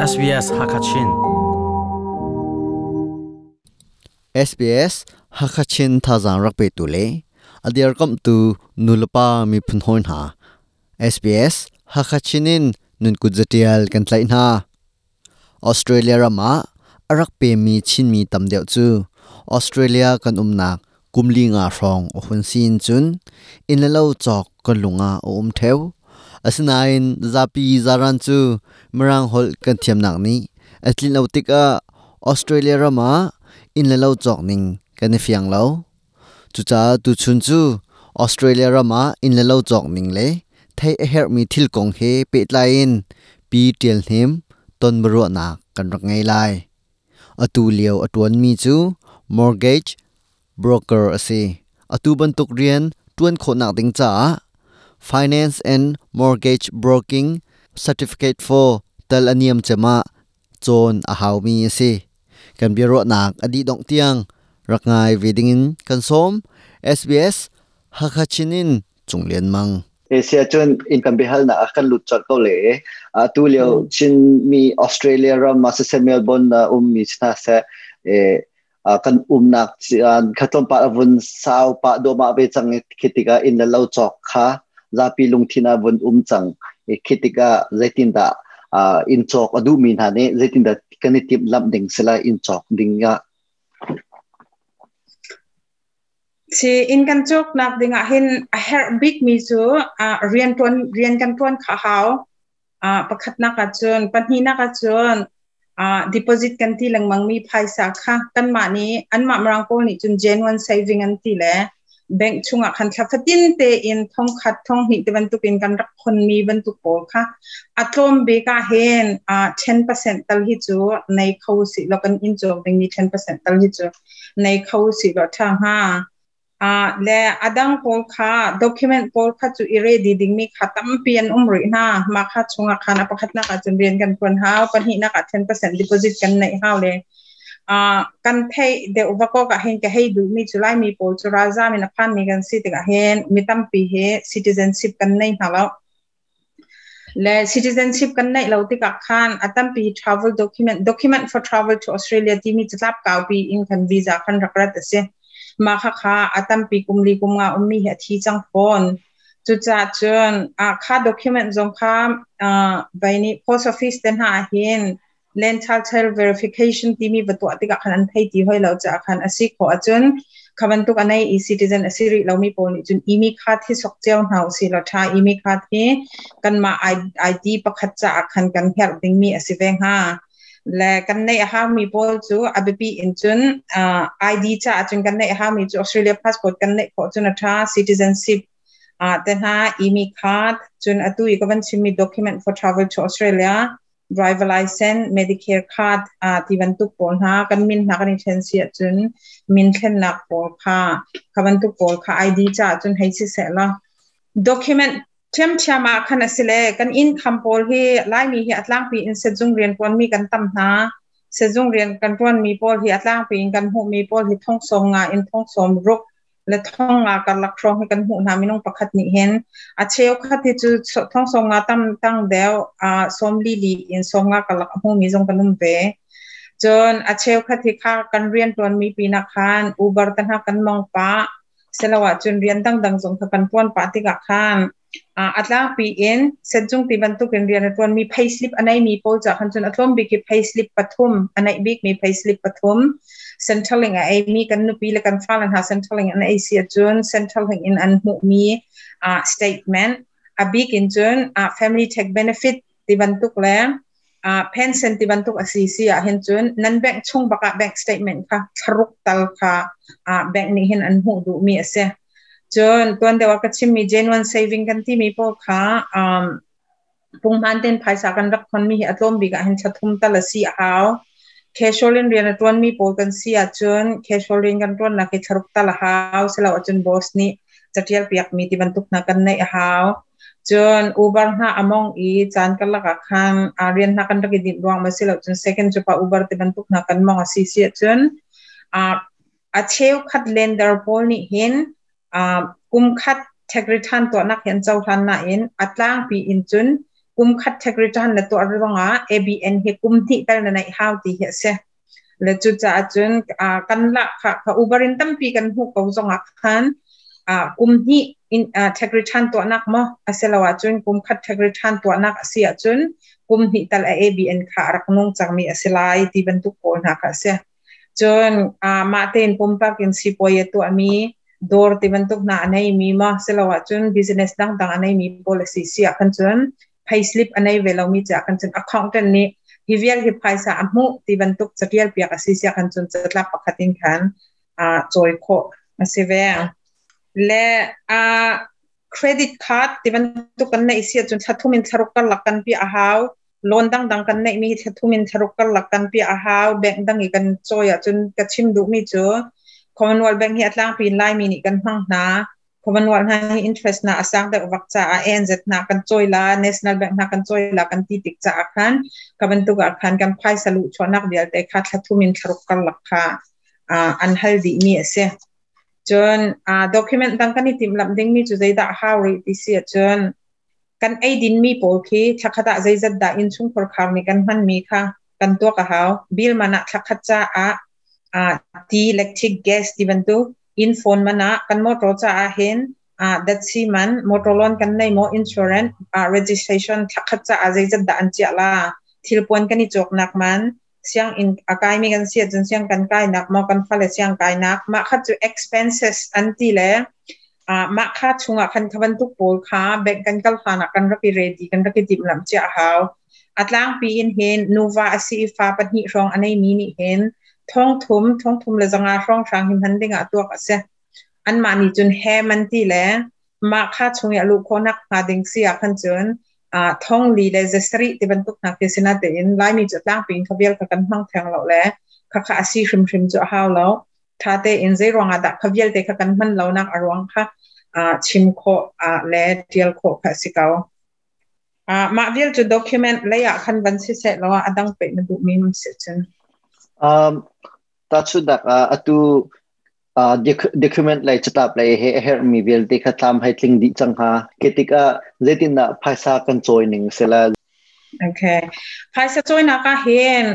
SBS Hakachin. SBS Hakachin thazang rak pe tu le adiar kam tu nulapa mi phun hoi hna. SBS Hakachin in nun kut zatial kan tlai hna. Australia rama arak pe mi Chin mi tam deuh chu Australia kan umnak kumli nga hrawng a hun sin cun inn le lo cawk kan lunga a um theo. Asinain zapi zaran cu Mirang holh kan thiamnak nih a tlin lo tikah Australia ram ah inn le lo cawk ning kan i fiang lo. Cucaah tuchun cu Australia ram ah inn le lo cawk ning le theih a herhmi thil kong he pehtlai in Pi Ṭial Hnem ton biaruahnak kan rak ngei lai. Atu lio a ṭuanmi cu mortgage broker a si. Atu bantuk rian ṭuan khawhnak ding caah Finance and Mortgage Broking Certificate for tal a niam cem ah cawn a haumi a si. Kan biaruahnak a dih dongh tiang rak ngai ve dingin kan sawm. SBS Hakha Chin in Cung Lian Mang. Asia cun in kan biahalnak ah kan lut colh ko le atu lio Chinmi Australia ram ah siseh Melbourne ah ummi hna seh kan umnak kha tlawmpal a vun sau pah duahmah ve cang i khi tikah inn le lo cawk kha zapi lungthin ah vun um cang i khi tikah zeitindah inn cawk a duhmi hna nih zeitindah kan i timhlamh ding si lai inn cawk ding ah? Si inn kan cawknak ding ah hin a herh bikmi cu rian ṭuan rian kan ṭuan kha a hau. Pakhatnak ah cun pahnihnak ah cun deposit kan ti lengmang mi phaisa kha kanmah nih anmah Mirang pawl nih cun genuine saving an ti le bank chungah khan thla fatin tein thongkhat thonghnih ti bantuk in kan rak khonmi bantuk pawl kha a tlawm bik ah hin 10% tal hi cu nei kho si lo kan inn cawk dingmi 10% tal hi cu nei kho si lo ṭha hnga. Le a dang pawl kha document pawl kha cu i ready dingmi kha tampi an um rih hna. Mah kha chungah khan a pakhatnak ah cun rian kan ṭuan hau, pahnihnak ah 10% deposit kan neih hau le kan theih deuh va kok ah hin ka hei duhmi cu Laimi pawl cu ralzam in a phanmi kan si tikah hin mi tampi hi citizenship kan nei hna lo. Le citizenship kan neih lo tikah khan a tampi travel document, document for travel to Australia timi catlap kaupi in khan visa khan rak rat a si. Mah khakha a tampi kum li kum nga ummi hi a thi cang fawn. Cucaah cun kha document zong kha vai nih post office te hna hin land title verification timi va tuah tikah khan an thei ti hoi lo caah khan a si khawh ahcun kha bantuk a nei i citizen a si rih lomi pawl nih cun imi card hi sok cio hna usih law tha. Imi card hi kanmah ID pakhat caah khan kan herh dingmi a si ve hnga. Le kan neih a haumi pawl cu a biapi in cun ID caah cun kan neih a haumi cu Australia passport kan neih khawh cun a tha, citizenship te hna, imi card, cun atu i ka van chimmi document for travel to Australia, driver license, Medicare card ti bantuk pawl hna kan min hna kan i thlen si ahcun min thlennak pawl kha kha bantuk pawl kha ID caah cun hei si seh law document ṭhiamṭhiam ah khan a si le kan income pawl hi Laimi hi a tlangpi in sehzung rian ṭuanmi kan tam hna. Sehzung rian kan ṭuanmi pawl hi a tlangpi in kan hmuhmi pawl hi thong sawm nga in thong sawm ruk le thong nga karlak hrawng hi kan hmuh hna minung pakhat nih hin. A cheukhat hi cu thong sawm nga tam tang deuh sawm li li in sawm nga karlak a hmumi zong kan um ve. Cun a cheukhat hi kha kan rian ṭuanmi pinah khan Uber te hna kan mong pah siloah cun rian dangdang zong kha kan ṭuan pah tikah khan a tlangpi in sehzung ti bantuk in rian a ṭuanmi payslip a neimi pawl ca khan cun a tlawm bik hi payslip pathum a neih bikmi payslip pathum, Centrelink a eimi kan nupi le kan fale hna Centrelink an ei si ahcun Centrelink in an hmuhmi statement, a bik in cun family tax benefit ti bantuk le pension ti bantuk a si si ah hin cun nan bank chung bak ah bank statement kha thlaruk tal kha bank nih hin an hmuh duhmi a si. Cun tuan deuh ah ka chimmi genuine saving kan timi pawl kha punghman ten phaisa kan rak khonmi hi a tlawm bik ah hin thla thum tal a si a hau. Casual in rian a ṭuanmi pawl kan si ahcun casual rian kan ṭuannak hi thlaruk tal a hau. Silo ahcun boss nih catial piakmi ti bantuk hna kan neih a hau. Cun Uber hna a mong i caan karlak ah khan rian hna kan rak i dinh ruang ma si lo cun second cu pa Uber ti bantuk hna kan mong a si si ahcun a cheukhat lender pawl nih hin kum khat tax return tuahnak hi an cohlan nain a tlangpi in cun Kum khat tax return na tuah ruangah ABN hi kum hnih tal na neih hau ti hi a si. Le cucaah cun kan lahkhah kha Uber in tampi kan hmuh ko zongah khan kum hnih in tax return tuahnak maw asilo ahcun kum khat tax return tuahnak a si ahcun kum hnih tal a ABN kha a rak nung cangmi a si lai ti bantuk pawl hna kha a si. Cun mah tein pumpak in sipuai a tuahmi dawr ti bantuk hna a neimi maw silo ahcun business dangdang a neimi pawl a si si ah khan cun payslip a nei ve lomi caah khan cun accountant nih hi vial hi phaisa a hmuh ti bantuk catial piak a si sia khan cun catlap pakhat in khan cawi khawh a si ve. Le credit card ti bantuk kan neih si ahcun thla thum in thlaruk karlak kan piah a hau. Loan dangdang kan neihmi hi thla thum in thlaruk karlak kan piah a hau. Bank dang i kan cawi ahcun ka chim duhmi cu Commonwealth Bank hi a tlangpi in Laimi nih kan hmang hna. Commonwealth hna hi interest na a sang deuh vak caah ANZ hna kan cawi la, National Bank hna kan cawi la kan ti tik caah khan ka bantuk ah khan kan phaisa luh chuahnak vialte kha thla thum in thlaruk karlak kha an hal dihmi a si. Cun document dang kan i timhlamh dingmi cu zeidah a hau rih ti si ahcun kan eidin mi pawl khi thlakhat ah zeizat dah innchungkhar khar nih kan hmanmi kha kan tuak a hau. Bill man ah thlakhat caah ti, electric, gas ti bantuk inn phone man ah kan motor caah hin datsi man, motor loan kan nei maw, insurance, registration thlakhat caah zeizat dah an chiah la, thilpuan kan i cawknak man, sianginn a kaimi kan si ahcun siang kan kainak maw kan fale siang kainak, mah kha cu expenses an ti le mah kha chungah khan kha bantuk pawl kha bank kan kal hlan ah kan rak i ready, kan rak i timhlamh cia a hau. A tlangpi in hin nuva a si i fa pahnih hrawng a neimi nih hin thong thum, 3500 hrawng hrang hi hman ding ah tuak a si. Anmah nih cun hem an ti le mah kha chung i a luh khawhnak hnga ding si ah khan cun 4700 ti bantuk hna khi si natein Laimi cu tlangpi in kha vial kha kan hmang theng lo le kha kha a si hrimhrim cu a hau lo. Tha tein zei ruangah dah kha vialte kha kan hman lonak a ruang kha chim khawh le tial khawh kha a si ko. Mah vial cu document lei ah khan van si seh law a dang peh na duhmi um si cun. Tahchunhnak ah atu document lei catlap lei he a herhmi vialte kha tlam hei tling dih cang hnga. Khi tikah zeitindah phaisa kan cawi ning si la? Okay. Phaisa cawinak ah hin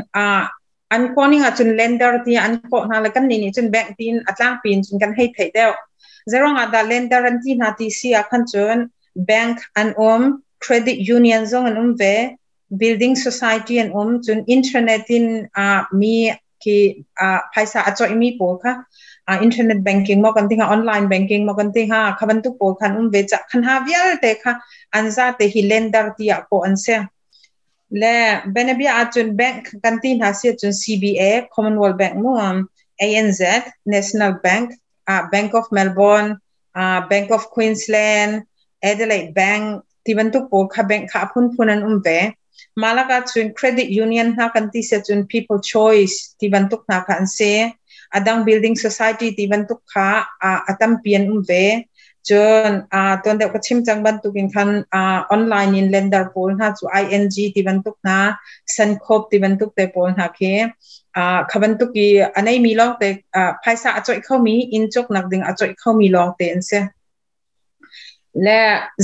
an kawning ah cun lender ti an kawh hna le kan nih nih cun bank tiin a tlangpi in cun kan hei theih deuh. Zeruang ah dah lender an ti hna ti si ah khan cun bank an um, credit union zong an um ve, building society an um, cun internet in mi khi phaisa a coihmi pawl kha internet banking maw kan ti hnga, online banking maw kan ti hnga, kha bantuk pawl khan um ve ca khan ha vialte kha an zate hi lender tiah kawh an si. Le benabia ahcun bank kan ti hna si ahcun CBA, Commonwealth Bank mu, ANZ, National Bank, Bank of Melbourne, Bank of Queensland, Adelaide Bank ti bantuk pawl kha bank kha a phunphun an um ve. Malak ahcun credit union hna kan ti si ahcun People Choice ti bantuk hna kha an si. Adang building society ti bantuk kha a tampi an um ve. Cun tuan deuh ka chim cang bantukin khan online in lender pawl hna cu ING ti bantuk hna, Suncorp ti bantuk te pawl hna khi kha bantuk i a neimi lawng te phaisa a coih khomi, inn cawknak ding a coih khomi lawng te an si. Le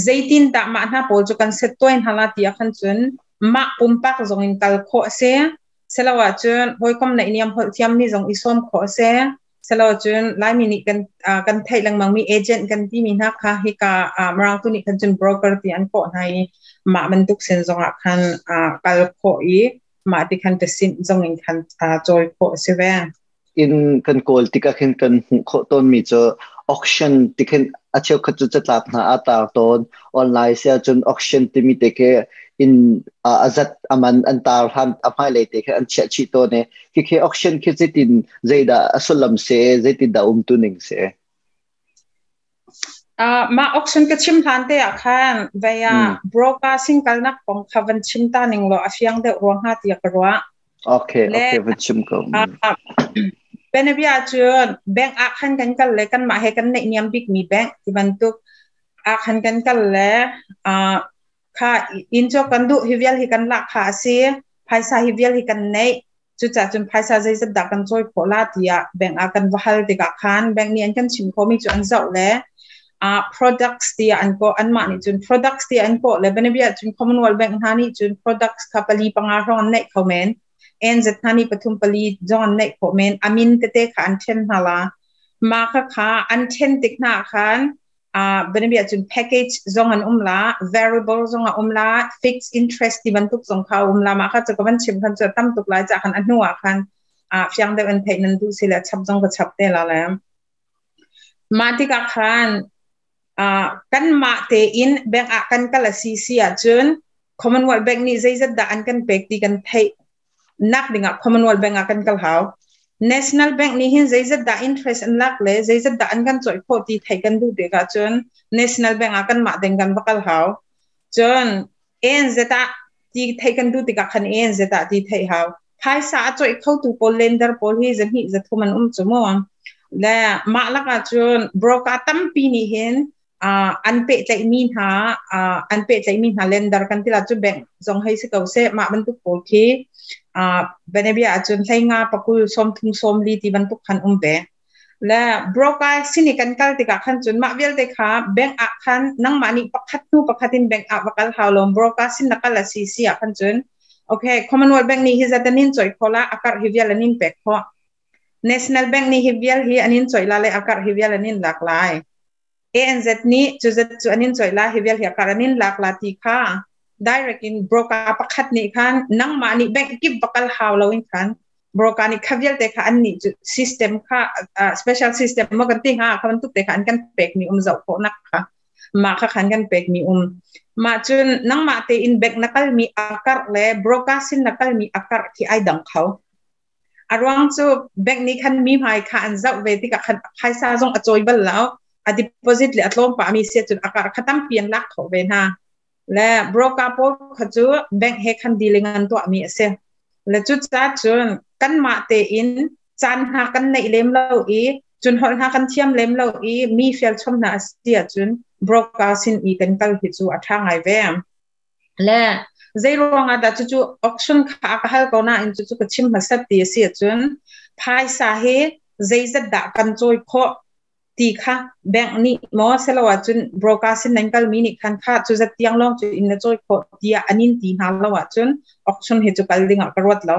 zeitin dah mah hna pawl cu kan set tuai hna la ti ah khan cun mah pumpak zong in kal khawh a si. Silo ahcun hawikom na iniam holh thiammi zong i sawm khawh a si. Silo cun Laimi nih kan theih lengmangmi agent kan timi hna kha hika Mirang tu nih khan cun broker ti an kawh hna i mah bantuk sin zongah khan kal khawh i mah ti khan ṭasinh zong in khan cawi khawh a si ve. In kan kawl tikah khin kan hmuh khawh tawnmi cu auction ti khin a cheukhat cu catlap hna a tar tawn. Online si ahcun auction timi te khi in a zat aman an tar hlan a hmailei te khi an chiah chih tawn i khi auction khi zeitin zeidah a sullam si, zeitin dah umtu ning si? Mah auction ka chim hlan te ah khan vei ah broker sing kalnak kong kha van chim ta ning law a fiang deuh rua hnga tiah ka ruah. Okay, okay, van chim ko. Benabia cun bank ah khan kan kal le kanmah he kan neih niam bikmi bank ti bantuk ah khan kan kal le kha inn cu kan duh, hi vial hi kan lak kha a si, phaisa hi vial hi kan neih, cucaah cun phaisa zeizat dah kan cawi khawh la tiah bank ah kan va hal tikah khan bank nih an kan chim khawhmi cu an zoh le Products ti an ko an mah nih cun products ti an ko le banabia cun Commonwealth Bank hna nih cun products kha pali panga hrawng an neih kho men, ANZ hna nih pathum pali zong an neih khawh men. Amin tete kha an then hna la. Ma kha kha an then tik hna khan banabia cun package zong an um la, variable zong a um la, fixed interest ti bantuk zong kha um la. Ma kha chu ka van chim khan chu tam tuk lai cha khan a hnu ah khan fiang deuh an theih nan duh si le chap zong ka chap te la le. Mah tikah khan kan mah tein bank ah kan kal a si si ahcun Commonwealth Bank nih zeizat dah an kan pek ti kan theih nak dingah Commonwealth Bank ah kan kal hau. National Bank nih hin zeizat dah interest an lak le zeizat dah an kan cawih khawh ti theih kan duh tikah cun National Bank ah kan mah ding kan va kal hau. Cun ANZ ah ti theih kan duh tikah khan ANZ ah ti theih hau. Phaisa a cawih khotu pawl, lender pawl hi zahnih zathum an um cu mu. Le mah lakah cun broker tampi nih hin an pehtlaihmi hna, an pehtlaihmi hna lender kan ti la cu, bank zong hei si ko seh, mah bantuk pawl khi benebia ahcun 15, 20, 30, 40 ti bantuk khan um ve. Le broker sini kan kal tikah khan cun mah vialte kha bank ah khan nangmah nih pakhat hnu pakhat in bank ah va kal hau lo. Broker sin na kal a si si ah khan cun, okay, Commonwealth Bank nih hi zat an in cawih kho la, akar hi vial an in pek khawh. National Bank nih hi vial hi an in cawih la le akar hi vial an in lak lai. ANZ nih cu zat cu an in cawih la, hi vial hi akar an in lak la ti kha direct in broker pakhat nih khan nangmah nih bank kip va kal hau lo in khan broker nih kha vialte kha an nih cu system kha, special system mo kan ti hnga, kha bantuk te kha an kan pek mi um, zoh khawh nak kha mah kha khan kan pek mi um. Mah cun nangmah tein bank na kal mi akar le broker sin na kal mi akar khi ai dang kho. A ruang cu bank nih khan mi hmai kha an zoh ve tikah khan phaisa zong a cawi bal lo, a deposit le a tlawm pa mi sia cun akar kha tampi an lak khawh ve hna. Le broker pawl kha cu bank he khan dealing an tuah mi a si. Le cu ca cun kanmah tein caan hna kan neih lem lo i cun holh hna kan thiam lem lo i mi fial chom hna a si ahcun broker sin i kan kal hi cu a ṭha ngai ve. Le zei ruangah dah cucu auction kha ka hal ko nain cucu ka chim hmasat ti a si ahcun, phaisa hi zeizat dah kan cawi khawh ti kha bank nih maw selo ahcun broker sin nan kalmi nih khan kha cu zat tiang lawng cu in na cawi khawh tiah an in ti hna lo ahcun auction hi cu kal ding ah ka ruat lo.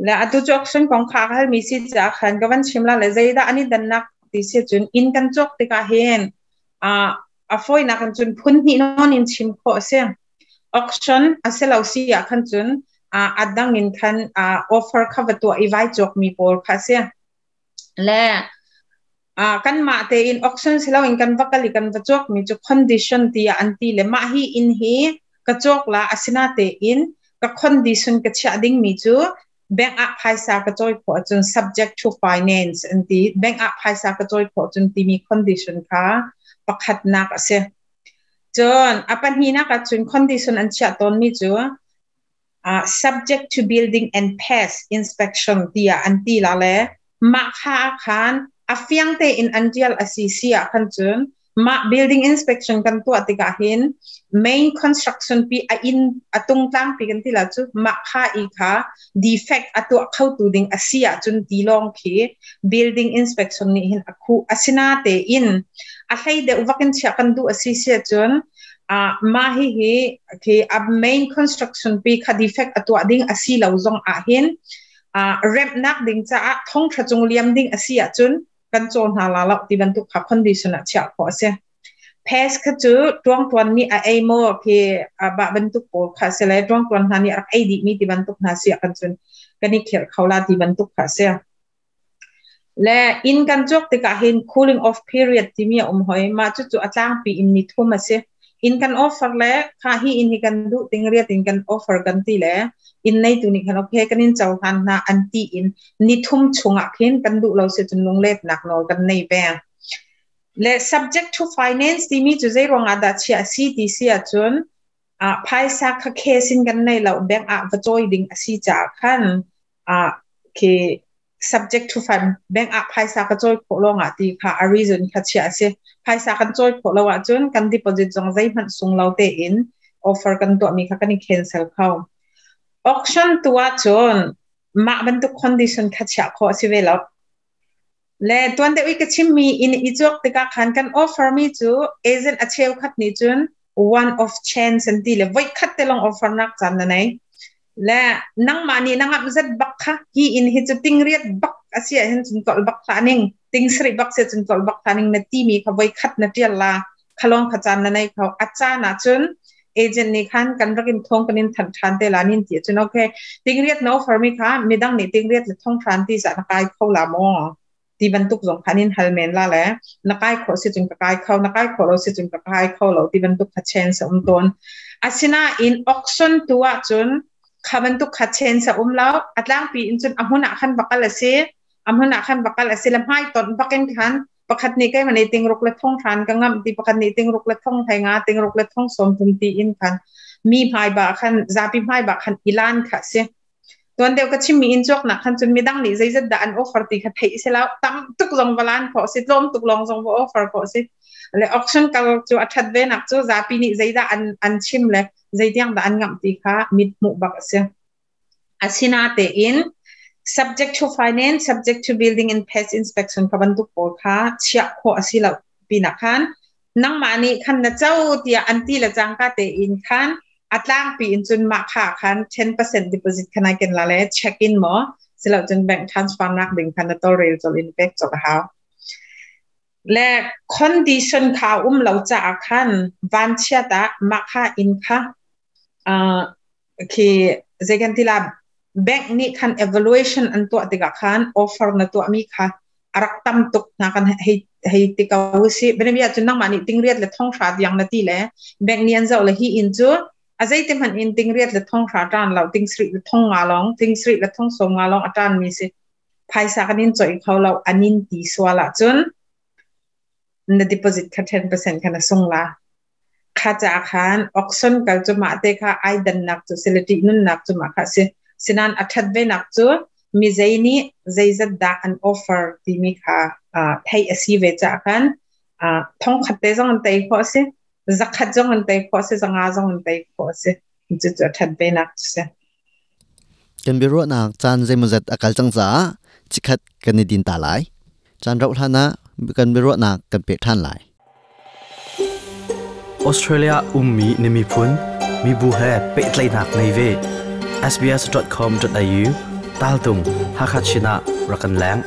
Le atu cu auction kong kha ka halmi si caah khan ka van chim la. Le zeidah an i dannak ti si cun, inn kan cawk tikah hin a fawinak in cun phun hnih nawn in chim khawh a si. Auction a si lo si ah khan cun a dang in khan offer kha va tuah i vai cawk mi pawl kha a si. Le kan mah tein auction si loin kan va kal i kan va cawk mi cu condition tiah an ti. Le mah hi inn hi ka cawk la, asina tein ka condition ka chiah ding mi cu bank ah phaisa ka cawi khawh ahcun, subject to finance an ti, bank ah phaisa ka cawi khawh cun timi condition kha pakhatnak a si. Cun a pahnihnak ah cun condition an chiah tawn mi cu subject to building and pest inspection tiah an ti la. Le mah kha khan a fiang tein an tial a si si ah khan cun mah building inspection kan tuah tikah hin main construction pi a in a tungtlang pi kan ti la cu, mah kha i kha defect a tuah kho tu ding a si ah cun ti lawng khi building inspection nih hin a khu. Asina tein a hlei deuh vakin chia kan duh a si si cun mah hi hi khi a main construction pi kha defect a tuah ding a si lo zong ah hin remnak ding caah thong tha cung liam ding a si ahcun kan caw hna la lo ti bantuk kha condition ah chiah khawh a si. Pest kha cu tuangtuan nih a ei maw khi ba bantuk pawl kha si le tuangtuan hna nih rak ei dih mi ti bantuk hna si kan cun kan i khirh kho la ti bantuk kha si. Le inn kan cawk tikah hin cooling off period timi a um hoi. Mah cu cu a tlangpi in ni thum a si. In kan offer le kha hi in hi kan duh ting riat in kan offer kan ti le in nei tu nih khan okay kan in cohlan hna an ti in ni thum chungah khin kan duh lo si cun lunglet nak nawl kan nei ve. Le subject to finance timi cu zei ruangah dah chia si ti si ahcun phaisa kha cash in kan nei lo, bank ah va cawi ding a si caah khan khi subject to fund, bank ah phaisa ka cawi khawh lawng ah ti kha a reason kha chia a si. Phaisa kan cawi khawh lo ahcun kan deposit zong zeihmanh sung lo tein offer kan tuahmi kha kan i cancel kho. Auction tu ahcun mah bantuk condition kha chiah khawh a si ve lo. Le tuan deuh i ka chimmi inn i cawk tikah khan kan offer mi cu agent a cheukhat nih cun one of chance an ti le voi khat te lawng offer nak caan na nei. Le nangmah nih na ngamh zat bak kha hi inn hi cu tingriat bak a si ahhin cun tolh bak hlah ning, tingsarih bak si cun tolh bak hlah ning na timi kha voi khat na tial la khalong kha caan na nei kho. A caan ah cun agent nih khan kan rak in thong kan in thanh than te la nin ti cun okay tingriat na offer mi kha midang nih tingriat le thong hran ti za na kai kho la maw ti bantuk zong khan in hal men la le na kai kho si cun ka kai kho na kai kho lo si cun ka kai kho lo ti bantuk kha chance um ton. Asina in auction tu ah cun kha bantuk kha chance um lo. Atlangpi in cun ahmun ah khan bakal asi, ahmun ah khan bakal asi le hmai ton bakin khan pakhat nih kai mani tingruk le thong hran ka ngam ti, pakhat nih tingruk le thong thai nga, tingruk le thong som thum ti in khan mi hmai ba khan zapi hmai ba khan ilan kha si. Tuan deuh ka chimmi in cawk nak khan cun midang nih zeizat dah an offer ti kha theih si lo, tam tuk zong valan kho si, tlawm tuk lawng zong va offer kho si. Le auction kal cu a that ve nak cu zapi nih zeidah an chim le zeitiang dah an ngam ti kha mit hmuh bak a si. Asina te in subject to finance, subject to building and pest inspection ka bantuk pawl kha chiah kho asi lo pinak khan nangmah nih khan na cho tiah an ti le cangka te in khan atlang pi in cun ma kha khan 10% deposit khan ai ken la le check in mo silo cun bank transfer nak ding khan na tol rel chol in pek chok hau. Le condition kha um lo cha khan van chia ta ma kha in kha khi zegan tila bank nih khan evaluation an tuah tikah khan offer na tuah mi kha arak tam tuk na kan hei hei ti ko si benabia chun nangmah nih tingriat le thong hra diang na ti le bank nih an zoh le hi in cu a zeite hmanh in tingriat le thong hra tan lo, tingsri le thong nga long, tingsri le thong som nga long atan mi si, phaisa kan in choi kho lo anin ti suala cun na deposit kha 10% kha na sung la. Kha cha khan auction kal chu ma te kha ai dan nak chu silati nun nak chu ma kha si sinan athat ve nak chu mi zeini zeizat da an offer ti mi kha thei asi ve cha khan thong khat te zong an tei kho si, zakhat zong an tei kho si, zanga zong an tei kho si, chu chu athat ve nak chu si. Kan biro nak chan zeimazat akal chang cha chikhat kan ni din ta lai chan rau hlana kan biro nak kan pe than lai. Australia ummi nimi phun mi bu he petlai nak nei ve sbs.com.au tal tung Hakachina rakan lang.